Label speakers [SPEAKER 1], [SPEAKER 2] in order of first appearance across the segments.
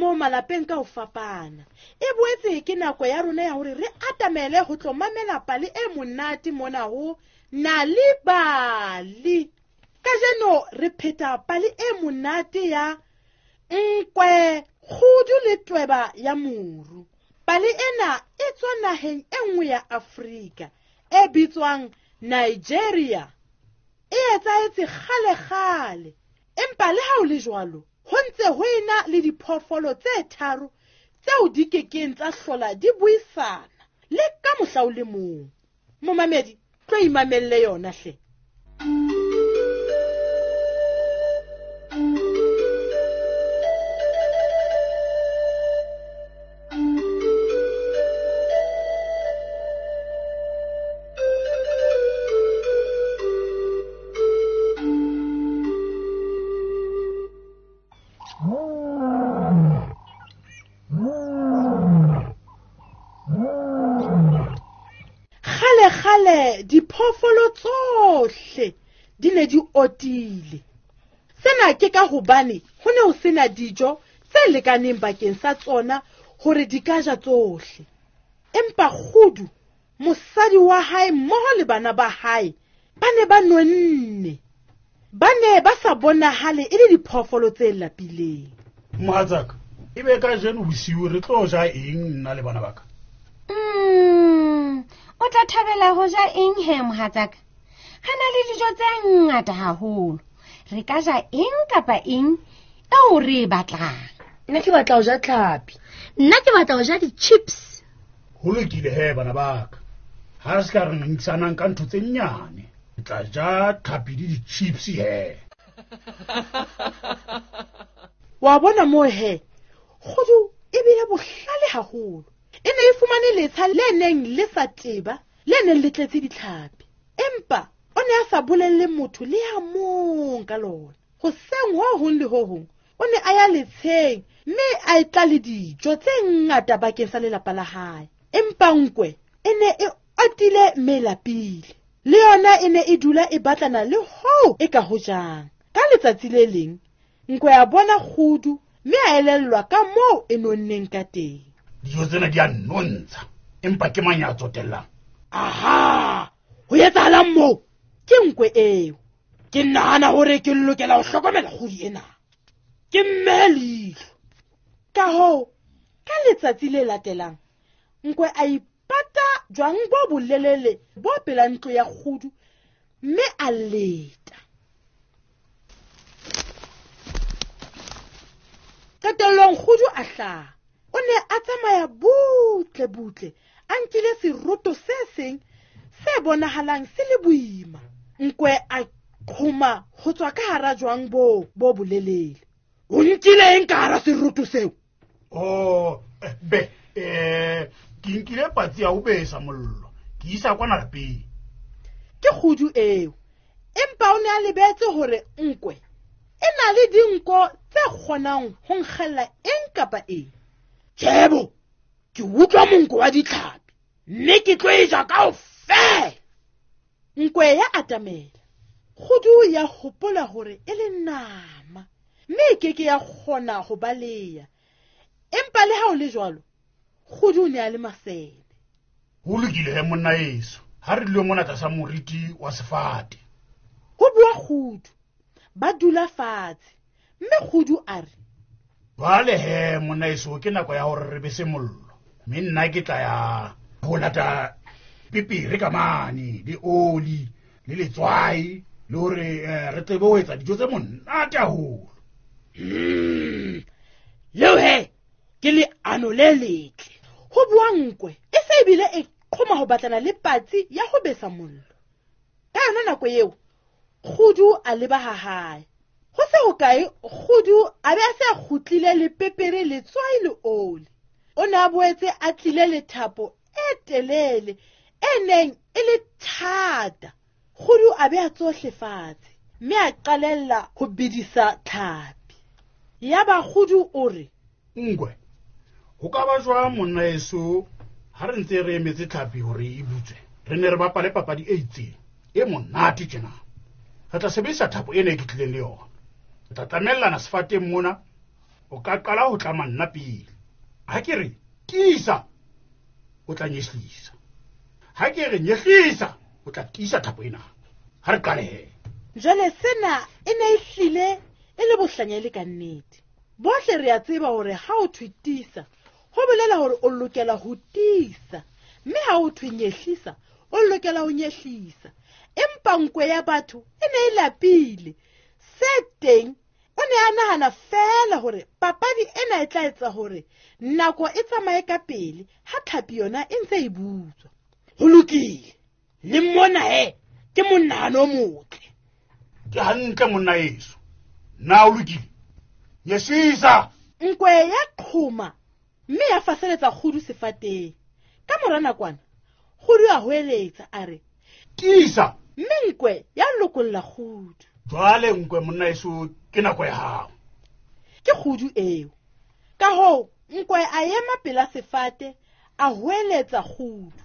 [SPEAKER 1] moo malapeng ka ho fapana. E boetse ke nako ya rona ya hore re atamele ho tlo mamela pale e monate mona ho Nal'ibali. Kajeno re pheta pale e monate ya Nkwe, Kgudu le Tweba ya Moru. Pale ena e tswa naheng e nngwe ya Afrika e bitswang Nigeria. E etsahetse kgale-kgale, empa le ha ho le jwalo, ho ntse ho ena le diphoofolo tse tharo tseo di kekeng tsa hlola di buisana le ka mohla o le mong. Momamedi, tlo imamelle yona hle. Kgale-kgale diphoofolo tsohle di ne di otile. Sena ke ka hobane ho ne ho sena dijo tse lekaneng bakeng sa tsona hore di ka ja tsohle. Empa Kgudu, mosadi wa hae mmoho le bana ba hae, ba ne ba nonne. Ba ne ba sa bonahale e le diphoofolo tse lapileng.
[SPEAKER 2] Mohatsaka, e be kajeno bosiu re tlo ja eng nna le bana ba ka?
[SPEAKER 3] O tla thabela ho ja eng he, mohatsaka? Re na le dijo tse ngata haholo. Re ka ja eng kapa eng eo re e batlang.
[SPEAKER 4] Nna ke batla ho ja tlhapi.
[SPEAKER 5] Nna ke batla ho ja di-chips.
[SPEAKER 2] Ho lokile he, bana ba ka. Ha re se ka re ngangisanang ka ntho tse nnyane. Re tla ja tlhapi le di-chips he.
[SPEAKER 1] Wa bona moo he, Kgudu e bile bohlale haholo. E ne e fumane letsha le neng le sa teba, le neng le tletse ditlhapi. Empa o ne a sa bolelle motho le ya mong ka lona. Hoseng ho hong le ho hong, o ne a ya letsheng mme a e tla le dijo tse ngata bakeng sa lelapa la hae. Empa nkwe e ne e otile mme e lapile. Le yona e ne e dula e batlana le hoo e ka ho jang. Ka letsatsi le leng, nkwe a bona Kgudu mme a elellwa ka moo e nonneng ka teng.
[SPEAKER 2] Dijo tsena di a nnontsha, empa ke mang ya tsotellang?
[SPEAKER 1] Aha! Ho etsahalang moo? Ke nkwe eo. Ke nahana hore ke lokela ho hlokomela kgudu ena. Ke mmehe leihlo. Ka hoo, ka letsatsi le latelang, nkwe a ipata jwang bo bolelele bo pela ntlo ya kgudu mme a leta. Qetellong kgudu a hlaha. O ne a tsamaya butle butle, a nkile seroto se seng se bonahalang se le boima. Nkwe a qhoma ho tswa ka hara jwang boo bo bolelele. O nkile eng ka hara seroto seo?
[SPEAKER 2] Oh, be, ke nkile patsi ya ho besa mollo, ke isa kwana lapeng.
[SPEAKER 1] Ke kgudu eo, empa o ne a lebetse hore nkwe e na le dinko tse kgonang ho nkgella eng kapa eng. Tjhebo, ke utlwa monko wa ditlhapi, mme ke tlo e ja kaofela. Nkwe ya atamela. Kgudu ya hopola hore e le nama, mme e keke ya kgona ho baleha. Empa le ha ho le jwalo, Kgudu o ne a le masene.
[SPEAKER 2] Ho lokile he monna eso, ha re dule mona tlasa moriti wa sefate.
[SPEAKER 1] Ho bua Kgudu. Ba dula fatshe, mme Kgudu a re,
[SPEAKER 2] Jwale he monna eso, ke nako ya hore re bese mollo. Mme nna ke tla ya ho lata pepere ka mane, le oli, le letswai, le hore re tsebe ho etsa dijo tse monate haholo.
[SPEAKER 1] Leo he, ke leano le letle. Ho bua nkwe, e se ebile e qhoma ho batlana le patsi ya ho besa mollo. Ka yona nako eo, Kgudu a leba ha hae. Ho se hokae, Kgudu a be a se a kgutlile le pepere, letswai le oli. O ne a boetse a tlile le thapo e telele e neng e le thata. Kgudu a beha tsohle fatshe mme a qalella ho bedisa tlhapi. Yaba Kgudu o re,
[SPEAKER 2] Nkwe, ho ka ba jwang monna eso ha re ntse re emetse tlhapi hore e butswe, re ne re bapale papadi e itseng e monate tjena. Re tla sebedisa thapo ena e ke tlileng le yona. Re tla tlamellana sefateng mona, O ka qala ho tlama nna pele. Ha ke re tiisa, o tla nyehlisa. Ha ke re nyehlisa, o tla tiisa thapo ena. Ha re qale he.
[SPEAKER 1] Jwale sena e ne e hlile e le bohlanya e le ka nnete. Bohle re a tseba hore ha o thwe tiisa, ho bolela hore o lokela ho tiisa, mme ha o thwe nyehlisa, o lokela ho nyehlisa. Empa nkwe ya batho e ne e lapile. Se teng, o ne a nahana feela hore papadi ena e tla etsa hore nako e tsamaye ka pele ha tlhapi yona e ntse e butswa.
[SPEAKER 4] Ho lokile, le mona he ke monahano o motle.
[SPEAKER 2] Ke hantle monna eso. Na o lokile? Nyehlisa.
[SPEAKER 1] Nkwe ya qhoma mme ya faseletsa kgudu sefateng. Ka mora nakwana, kgudu a hoeletsa a re,
[SPEAKER 2] Tiisa.
[SPEAKER 1] Mme nkwe ya lokolla kgudu.
[SPEAKER 2] Jwale nkwe monna eso, ke nako ya hao.
[SPEAKER 1] Ke kgudu eo. Ka hoo, nkwe a ema pela sefate, a hoeletsa kgudu.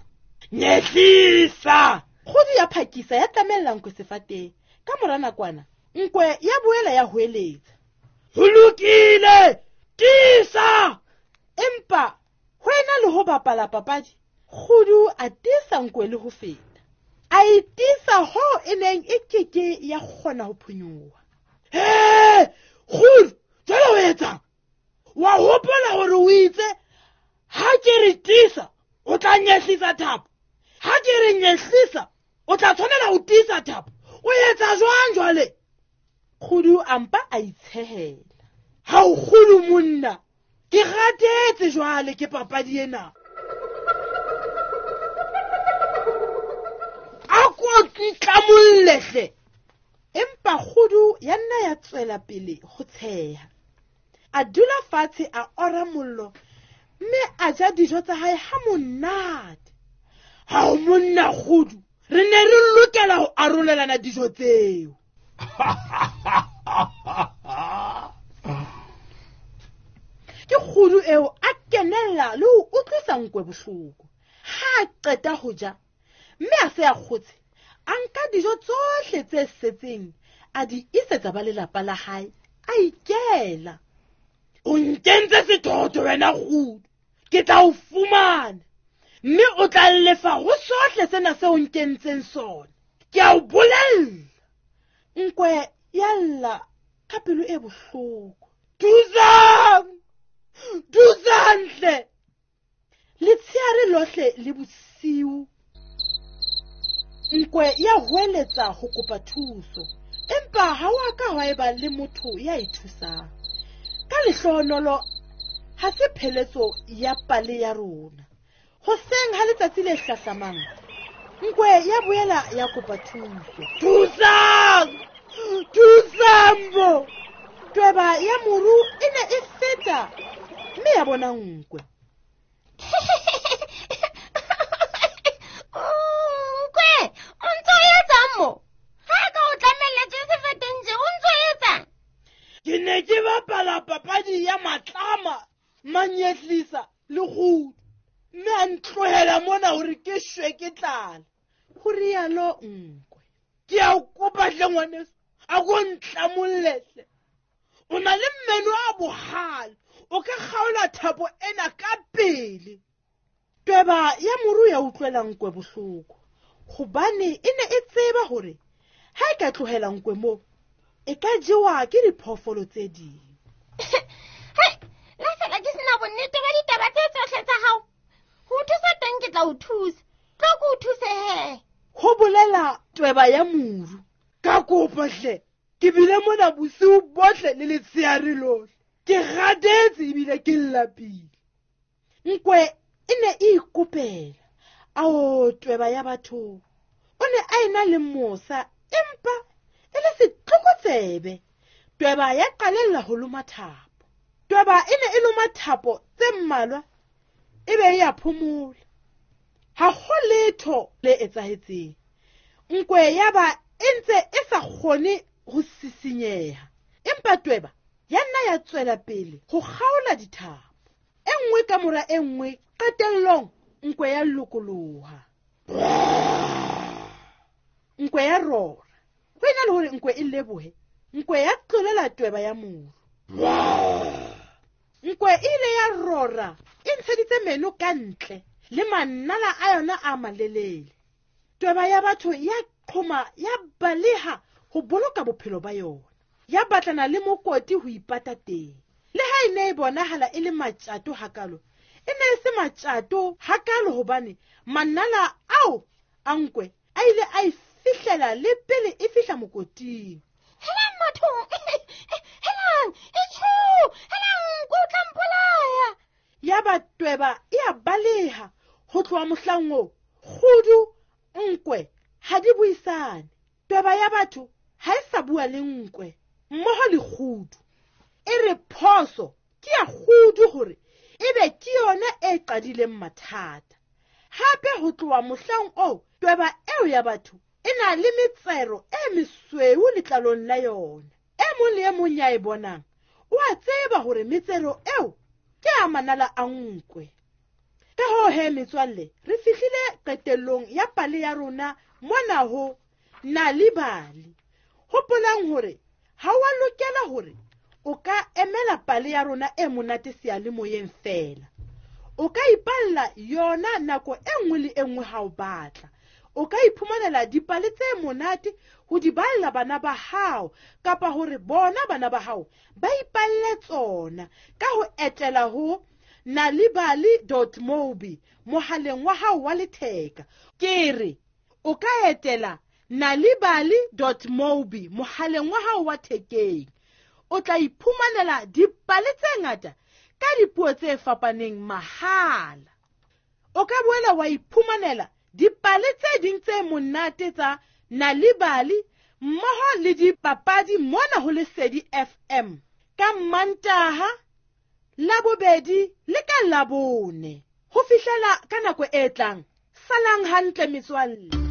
[SPEAKER 4] Nyehlisa.
[SPEAKER 1] Kgudu ya phakisa ya tlamella nkwe sefateng. Ka mora nakwana, nkwe ya boela ya hoeletsa.
[SPEAKER 4] Ho lokile, tiisa.
[SPEAKER 1] Empa ho ena le ho bapala papadi, kgudu a tiisa nkwe le ho feta. A e tiisa hoo e neng e keke ya kgona ho phonyoha.
[SPEAKER 4] He, kgudu, jwale o etsang? Wa hopola hore o itse ha ke re tiisa, o tla nyehlisa thapo. Ha ke re nyehlisa, o tla tshwanela ho tiisa thapo. O etsa jwang jwale?
[SPEAKER 1] Kgudu a mpa a itshehela.
[SPEAKER 4] Ha o kgudu monna, ke ratetse jwale ke papadi ena. A ko tlamolle hle.
[SPEAKER 1] Empa kgudu ya nna ya tswela pele ho tsheha. A dula fatshe a ora mollo mme a ja dijo tsa hae ha monate.
[SPEAKER 4] Ha o monna kgudu, re ne re lokela ho arolelana dijo tseo.
[SPEAKER 1] Ke kgudu eo a kenella le ho utlwisa nkwe bohloko. Ha a qeta ho ja, mme a se a kgotse, a nka dijo tsohle tse setseng, a di isetsa ba lelapa la hae, a ikela.
[SPEAKER 4] O nkentse sethotho wena kgudu, ke tla o fumana, mme o tla lefa ho sohle sena seo nkentseng sona. Ke a o bolella.
[SPEAKER 1] Nkwe ya lla ka pelo e bohloko.
[SPEAKER 4] Thusang! Thusang hle!
[SPEAKER 1] Letsheare lohle le bosiu, nkwe ya hoeletsa ho kopa thuso, empa ha wa ka hwa eba le motho ya e thusang. Ka lehlohonolo, ha se pheletso ya pale ya rona. Hoseng ha letsatsi le hlahlamang, nkwe ya boela ya kopa thuso.
[SPEAKER 4] Thusang! Thusang bo!
[SPEAKER 1] Tweba ya moru e ne e feta mme ya bona nkwe.
[SPEAKER 3] Nkwe, o ntso o etsang mo? Ha ka o tlamelletswe sefateng tje, o ntso o etsang?
[SPEAKER 4] Ke ne ke bapala papadi ya matlama, manyehlisa le kgudu, mme a ntlohela mona hore ke shwe ke tlala.
[SPEAKER 1] Ho rialo nkwe.
[SPEAKER 4] Ke a o kopa hle ngwaneso, a ko ntlamolle hle. O na le meno a bohale, o ka kgaola thapo ena ka pele.
[SPEAKER 1] Tweba ya moru ya utlwela nkwe bohloko, hobane e ne e tseba hore ha e ka tlohela nkwe moo, e ka jewa ke diphoofolo tse ding.
[SPEAKER 3] Hei, la fela ke sena bonnete ba ditaba tse tsohle tsa hao. Ho thusa teng ke tla o thusa. Tlo ke o thuse he.
[SPEAKER 1] Ho bolela tweba ya moru.
[SPEAKER 4] Ka kopa hle, ke bile mona bosiu bohle le letsheare lohle. Ke kgathetse ebile ke lapile.
[SPEAKER 1] Nkwe e ne e ikopela. Ao tweba ya batho. O ne a ena le mosa empa e le setlokotsebe. Tweba ya qalella ho loma thapo. Tweba e ne e loma thapo tse mmalwa e be e ya phomola. Ha ho letho le etsahetseng. Nkwe ya ba e ntse e sa kgone ho sisinyeha. Empa tweba ya nna ya tswela pele ho kgaola dithapo. E nngwe ka mora e nngwe, qetellong nkwe ya lokoloha. Nkwe ya rora. Ho ena le hore nkwe e lebohe, nkwe ya tlolela tweba ya moru. Nkwe e ile ya rora e ntsheditse meno ka ntle le manala a yona a malelele. Tweba ya batho ya qhoma ya baleha ho boloka bophelo ba yona. Ya batlana le mokoti ho ipata teng. Le ha e ne e bonahala e le matjato hakalo, e ne e se matjato hakalo hobane manala ao a nkwe a ile a e fihlela le pele e fihla mokoting.
[SPEAKER 3] Helang batho, helang, etsho, helang, nkwe o tla mpolaya.
[SPEAKER 1] Ya ba tweba e a baleha ho tloha mohlang oo. Kgudu, nkwe ha di buisane. Tweba ya batho ha e sa bua le nkwe mmoho le kgudu. E re phoso ke ya kgudu hore ebe ke yona e qadileng mathata. Hape ho tloha mohlang oo tweba eo ya batho e na le metsero e mesweu letlalong la yona. E mong le e mong ya e bonang o a tseba hore metsero eo ke a manala a nkwe. Ka hoo he metswalle, re fihlile qetellong ya pale ya rona mona ho Nal'ibali. Hopolang hore ha wa lokela hore o ka emela pale ya rona e monate seyalemoyeng feela. O ka ipalla yona nako e nngwe le e nngwe ha o batla. O ka iphumanela dipale tse monate ho di balla bana ba hao kapa hore bona bana ba hao ba ipalle tsona ka ho etela ho nalibali.mobi mohaleng wa hao wa letheka. Ke re o ka etela nalibali.mobi mohaleng wa hao wa thekeng. O tla iphumanela dipale tse ngata ka dipuo tse fapaneng mahala. O ka boela wa iphumanela dipale tse ding tse monate tsa Nal'ibali mmoho le dipapadi mona ho Lesedi FM ka Mantaha, Labobedi le ka Labone. Ho fihlela ka nako e tlang, salang hantle metswalle.